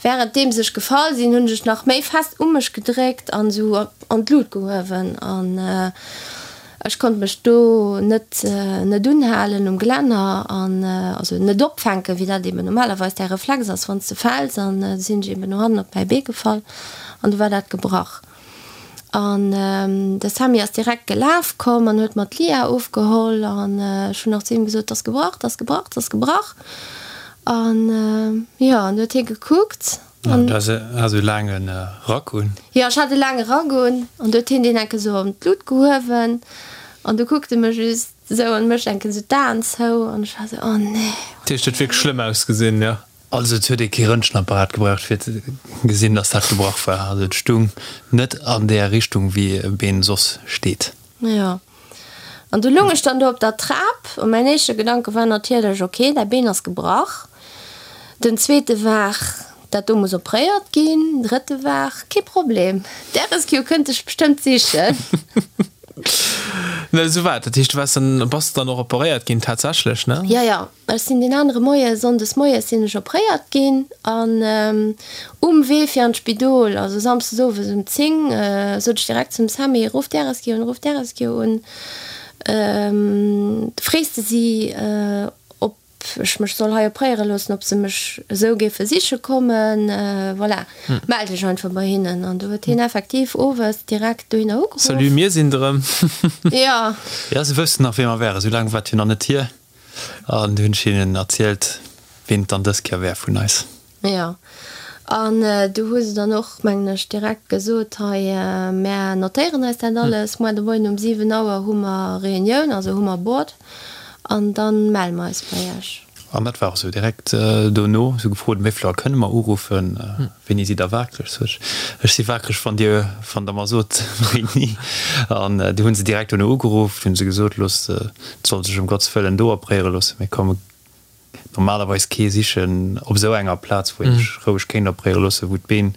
wärenddeems ech gefall sinn, hunn ech nach méi fest u mech gedréckt an esou an d'Lut gehuewen an Ech konnt mech do net net unhalen um Gelänner an also net opfänken, wéi dat eben normalerweis däi Reflex ass, wann s de fäls. An du sinn ech eben no hannen op mäi Bee gefall an du war dat gebrach. An de Sammy ass direkt gelaf komm an huet mer d'Lia ofgeholl an ech hunn nach zu him gesot, 't ass gebrach, 't ass gebrach, 't ass gebrach. An jo, an du huet hie gekuckt.
An du has e laange Rack un?
Jo, ech hat e laange Rack un. An du huet hien deen enke sou an d'Lut gehuewen. An du kuckt e mech just sou an mécht enke sou d'Aen zou. An ech war sou, oh nee.
Dat heescht, et huet wierklech schlëmm ausgesinn, jo?
Also et huet ee kee Röntgenapparat gebraucht fir ze gesinn, dass dat gebrach war. Also et stung net an där Richtung wéi e Been soss steet.
Jo. An du lung ech dann do op der Trap a mäin éischte Gedanke war natierlech, ok, däi Been ass gebrach. Den zweete war, dat do muss opréiert ginn. Den drëtte war, kee Problem, d'Air-Rescue kënnt dech bestëmmt sichen.
Na, esou war et. Dat heescht, du waars dann, bass dann och operéiert ginn tatsächlech, ne?
Jo, jo. Ech sinn deen anere Moie, sonndes moies sinn ech opréiert ginn an um Wee fir an d'Spidol, also samsdes owes um 10, sot ech direkt zum Sammy, Ruff d'RSG un, ruff d'RSG un, frees de si, ob ech mech soll hei opréiere loossen, ob se mech esou géife siche kommen, voilà, mell dech einfach bei hinnen. An du huet hien effektiv owes direkt dohinner ugeruff.
Salut, mir sinn et erëm.
Jo.
Jo, se wëssten nach, wee mer wären, esou laang war et jo nach net hier. An du hunn ech hinnen erzielt, ween et dann dës Kéier wär vun eis.
Jo, an du hu se dann och, mengen ech, direkt gesot, hei, mär notéieren eis dat alles, muer de Moien um 7 Auer hu mer Reunioun, also hu mer Board, an da melle mer eis bei iech.
An dat war och esou. Direkt dono hu se gefrot, wéi vill Auer kënne mer uruffen, wéini sidd der waakreg? Sot ech, ech si waakreg, wann dir, wann der mer sot, wéini. An du hu se direkt dono ugeruff, du hu se gesot, loosst, et soll sech ëm Gottes Wëllen do opréiere loossen, mir komme normalerweis kee sichen op esou enger Plaz, wou een sech roueg kéint opréiere loossen, wou d'Been,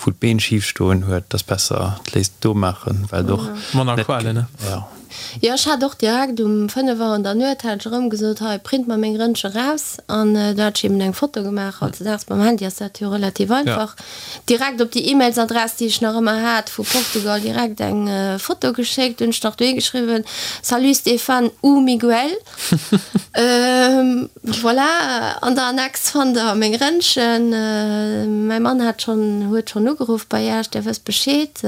wou d'Been schif stoen huet. Et ass besser, et léisst do maachen, well et och
Manner
net,
Qualen, ne?
jo.
Jo, ech hat och direkt um 5 Auer an der Nuet hat ech erëm gesot, hei print mer meng Rëntge raus an do hat ech eben eng Foto gemaach. Hautdesdaags mam Handy ass dat jo relativ einfach. Direkt op déi E-Mails-Adress, déi ech nach ëmmer hat vu Portugal, direkt eng Foto geschéckt. Hunn ech nach dohi geschriwwen, Salut Stéphane ou Miguel. Voilà, an der Annex fannt der meng Rëntgen. Mäi Mann hat schonn, huet schonn ugeruff bei Iech, Dir wësst Bescheed.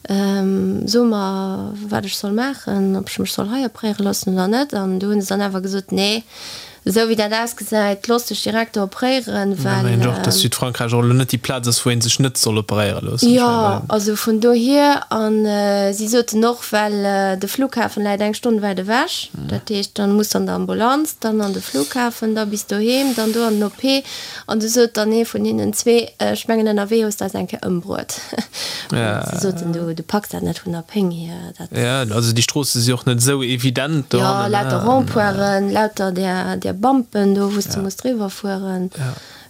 So mer, wat ech soll maachen, ob ech mech soll hei opréiere loossen oder net. An du hunn se dann awer gesot, Nee, esou wéi dat ausgesäit, looss dech direkt do opréieren,
well. Ech mengen och, dass Südfrankräich och elo net déi Plaz ass, wou ee sech net soll operéiere loossen.
Jo, also vun dohier. A si soten och, well de Flughafen läit eng Stonn wäit ewech, dat heescht, dann muss an der Ambulanz, dann an de Flughafen, da bis doheem, dann do an den OP. An du sot dann ee vun hinnen zwee, Ech mengen ënnerwee hues de eis eng Kéier ëmbruet. Si soten, Du, du packs dat net vun der Péng hier.
Dat. Jo, also déi Stroosse si och net esou evident
do hannen. Jo, lauter Rond-pointen, lauter där, där Bumpen do, wou s de muss driwwer fueren.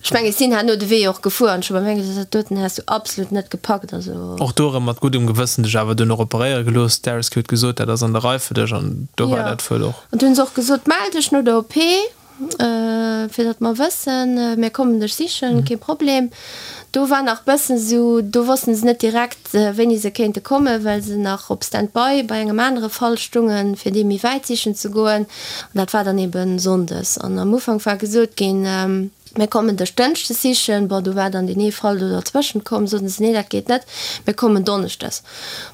Ech mengen, ech sinn herno de Wee och gefuer an ech hu bei mir gesot, Dat doten häss du absolut net gepackt. Also.
Och do erëm mat guddem Gewëssen dech awer duerno operéiere gelooss. D'Arescue huet gesot, dat ass an der Rei fir dech an do war dat wuel och.
An du hunn se och gesot, Mell dech no der OP. Fir datt mer wëssen, mir kommen dech sichen, kee Problem. Do war nach bëssen esou, do wossten se net direkt, wéini se kéinte kommen, well se nach op Stand-by bei engem anere Fall stungen, fir dee méi wäit sichen ze goen. An dat war dann ebe sonndes. An am Ufank war gesot ginn, mir kommen dech dënschdes sichen. Bon, do war dann deen ee Fall do derzwëschent komm, soten se, nee, dat geet net, mir kommen donneschdes.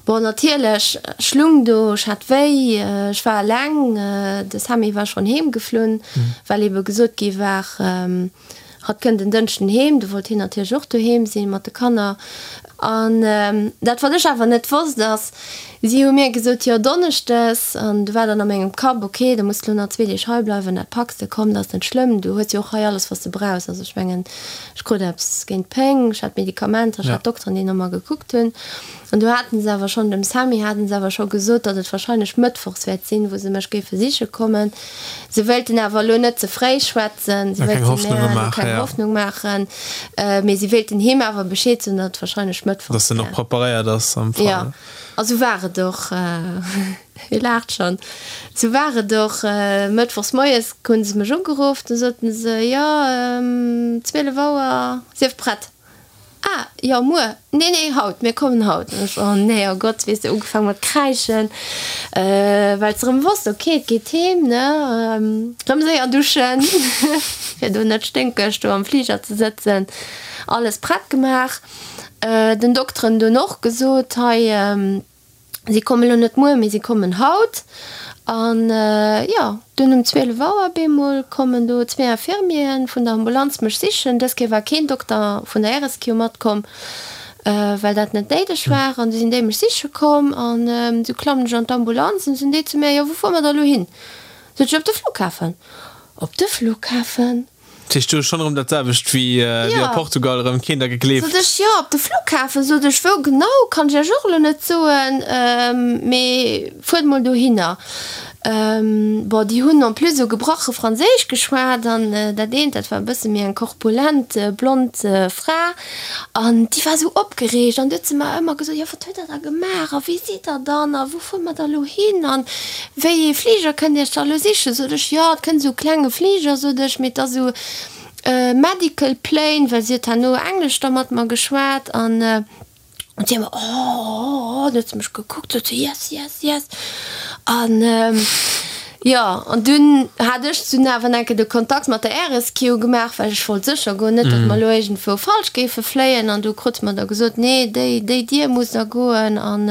Bon, natierlech, ech lung do, ech hat wéi, ech war eleng, de Sammy war schonn heem geflunn, well ebe gesot gi war, hatt kënnt en Dënschden heem, du wollt hien natierlech och doheem sinn mat de Kanner. An dat wat ech awer net wosst ass, si hu mir gesot, jo Donneschdes, an du war dann a mengem Kapp, ok, da muss de lo nach zwee Deeg hei bleiwen, dat packs de, komm, dat ass net schlëmm, du hues jo och hei alles wat s de brauchs, also ech mengen, Ech krut eppes géint d'Péng, ech hat Medikamenter, ech hat Dokteren, déi no mer gekuckt hunn. An du haten se awer schonn, dem Sammy haten se awer scho gesot, datt et warscheinlech mëttwochs wäert sinn, wou se mech géife siche kommen. Se wéilten awer elo net ze fréi schwätzen, se wéilten mir elo keng Hoffnung maachen, mee si wéilten him awer Bescheed soen, datt et warscheinlech mëttwochs wär.
Datt en och preparéiert ass am Fall.
Jo, a sou war et och. Hie laacht schonn. Sou war et och. Mëttwochs moies hunn se mech ugeruff. Du soten se, Jo, 12 Auer, sief prett. Ah, jo, muer? Nee, nee, haut, mir kommen haut. An ech, Oh nee, oh Gott, weess de, ugefaang mat kräischen, well s de erëm wosst, ok, et geet heem, ne? Erëm séier duschen, fir do net sténkeg do am Fliger ze sëtzen. Alles prett gemaach. Den Dokteren dunn och gesot, hei, Si kommen elo net muer, mee si kommen haut. An jo, dunn um 12 Auer bemol kommen do zwee Infirmieren vun der Ambulanz mech sichen. Dës Kéier war keen Dokter vun der RSQ matkomm, well dat net néideg war. An du sinn déi mech siche komm an du klammen ech an d'Ambulanz an du sinn déi zu mir, Jo, wou fuere mer da elo hin? Sot ech, Op de Flughafen. Op de Flughafen?
Dat heescht, du hues schonn erëm dat selwecht wéi a Portugal, erëm keen der gegleeft.
Sot ech, jo, op de Flughafen. Sot ech, wou genau, kann ech iech och elo net soen, mee fuert mol dohinner. Bon, déi hunn en plus esou gebrache Franséisch geschwat an dat eent, dat war e bësse méi eng korpulent, blond Fra an déi war esou opgereegt an du huet se mer ëmmer gesot, jo, wat huet der da gemaach a wéi sidd der dann a wou fuere mer da elo hin an Wéi ee Fliger kënnt Iech da elo sichen? Sot ech, jo, et kënnt esou e klenge Fliger, sot ech, mee et ass esou e medical plane, well si huet herno Englesch da mat mer geschwat an si ëmmer, oh, oh, oh, dann huet se mech gekuckt, sot se, yes, yes, yes. An jo, an dunn hat ech dunn awer enke de Kontakt mat der Air-Rescue gemaach, well ech wollt sécher goen, net datt mer elo iergendwou falsch géife fléien. An du krute mer da gesot, nee, déi, déi Dier muss da goen an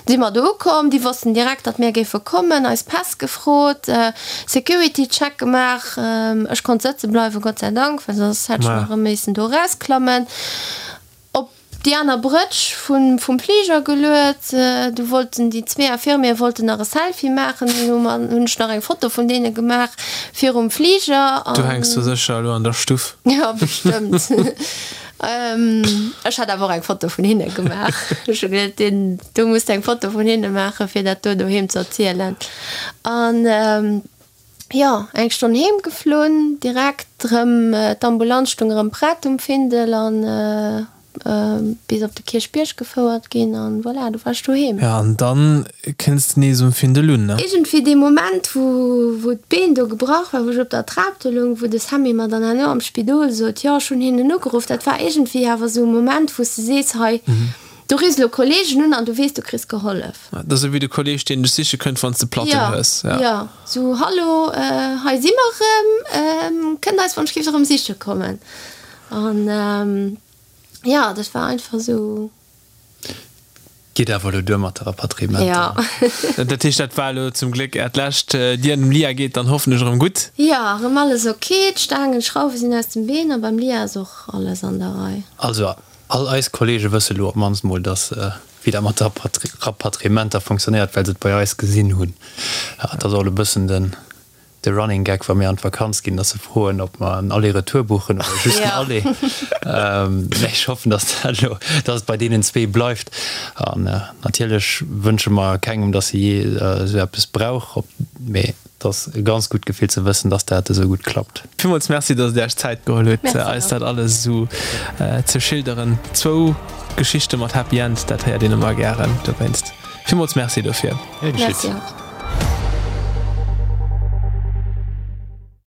Si mer do ukomm, déi wossten direkt, datt mir géife kommen, eis Päss gefrot, Security Check gemaach. Ech konnt sëtze bleiwen, Gott sei Dank, well soss hätt ech nach erëm missen do erausklammen. Op déi aner Brëtsch vum Fliger geluet. Du wollten déi zwee Infirmiere wollten nach e Selfie maachen, dunn hu mer, hunn ech nach eng Foto vun deene gemaach virum Fliger.
Du hänks do sécher elo an der Stuff.
Jo, bestëmmt. Ech hat awer och eng Foto vun hinne gemaach. Ech hu geduet, deen do muss de eng Foto vun hinne maachen, fir dat do doheem ze erzielen. An jo, eng Stonn heem geflunn, direkt erëm, d'Ambulanz stung erëm prett um Findel an. bis op de Kierchbierg gefouert ginn an voilà, du war ech doheem.
Jo, an dann kënns de nees um Findel un, ne?
Iergendwéi dee Moment, wou, wou d'Been do gebrach war, wou ech op der Trap do loung, wou de Sammy mer dann herno am Spidol sot, jo, ech hunn hinnen ugeruff, dat war iergendwéi awer esou e Moment, wou s de sees, hei, do riffs elo Kollegen un an du weess, du kriss gehollef.
Dat ass esou wéi de Kolleg, deen dech siche kënnt, wann s de Platten hues.
Jo, jo, esou, Hallo, hei si mer erëm, kënnt eis wann ech géif erëm siche kommen. An jo, dat war einfach esou.
Geet awer elo duer mat de Rapatriementer.
Jo.
Dat heescht, dat war elo zum Gléck Äert lescht. Dir an dem Lia geet dann hoffentlech erëm gutt?
Jo, erëm alles ok. D'Staangen, d'Schrauwe sinn aus dem Been a beim Lia ass och alles an der Rei.
Also, all eis Kollege wësse lo op d'mannst mol, dass wéi dat mat de Rapatriementer funktionéiert, well se et bei eis gesinn hunn. Dat ass och elo e bëssen den De Running Gag wa mir an d'Vakanz ginn, dass se froen ob mer en Aller-Retour buchen oder just en Aller. Mä ech hoffen, dass dat elo, dass et bei deenen zwee bleift. An natierlech wënsche mer kengem, dass e jee esou eppes brauch, mee et ass e ganz gutt Gefill ze wëssen, dass dat esou gutt klappt.
Villmools Merci, dass Dir Iech d'Zäit geholl hutt, eis dat alles esou ze schilderen. Zwou Geschichte mat Happy End, dat héiert een ëmmer gären. Dowéinst villmools Merci dofir.
Gär geschitt.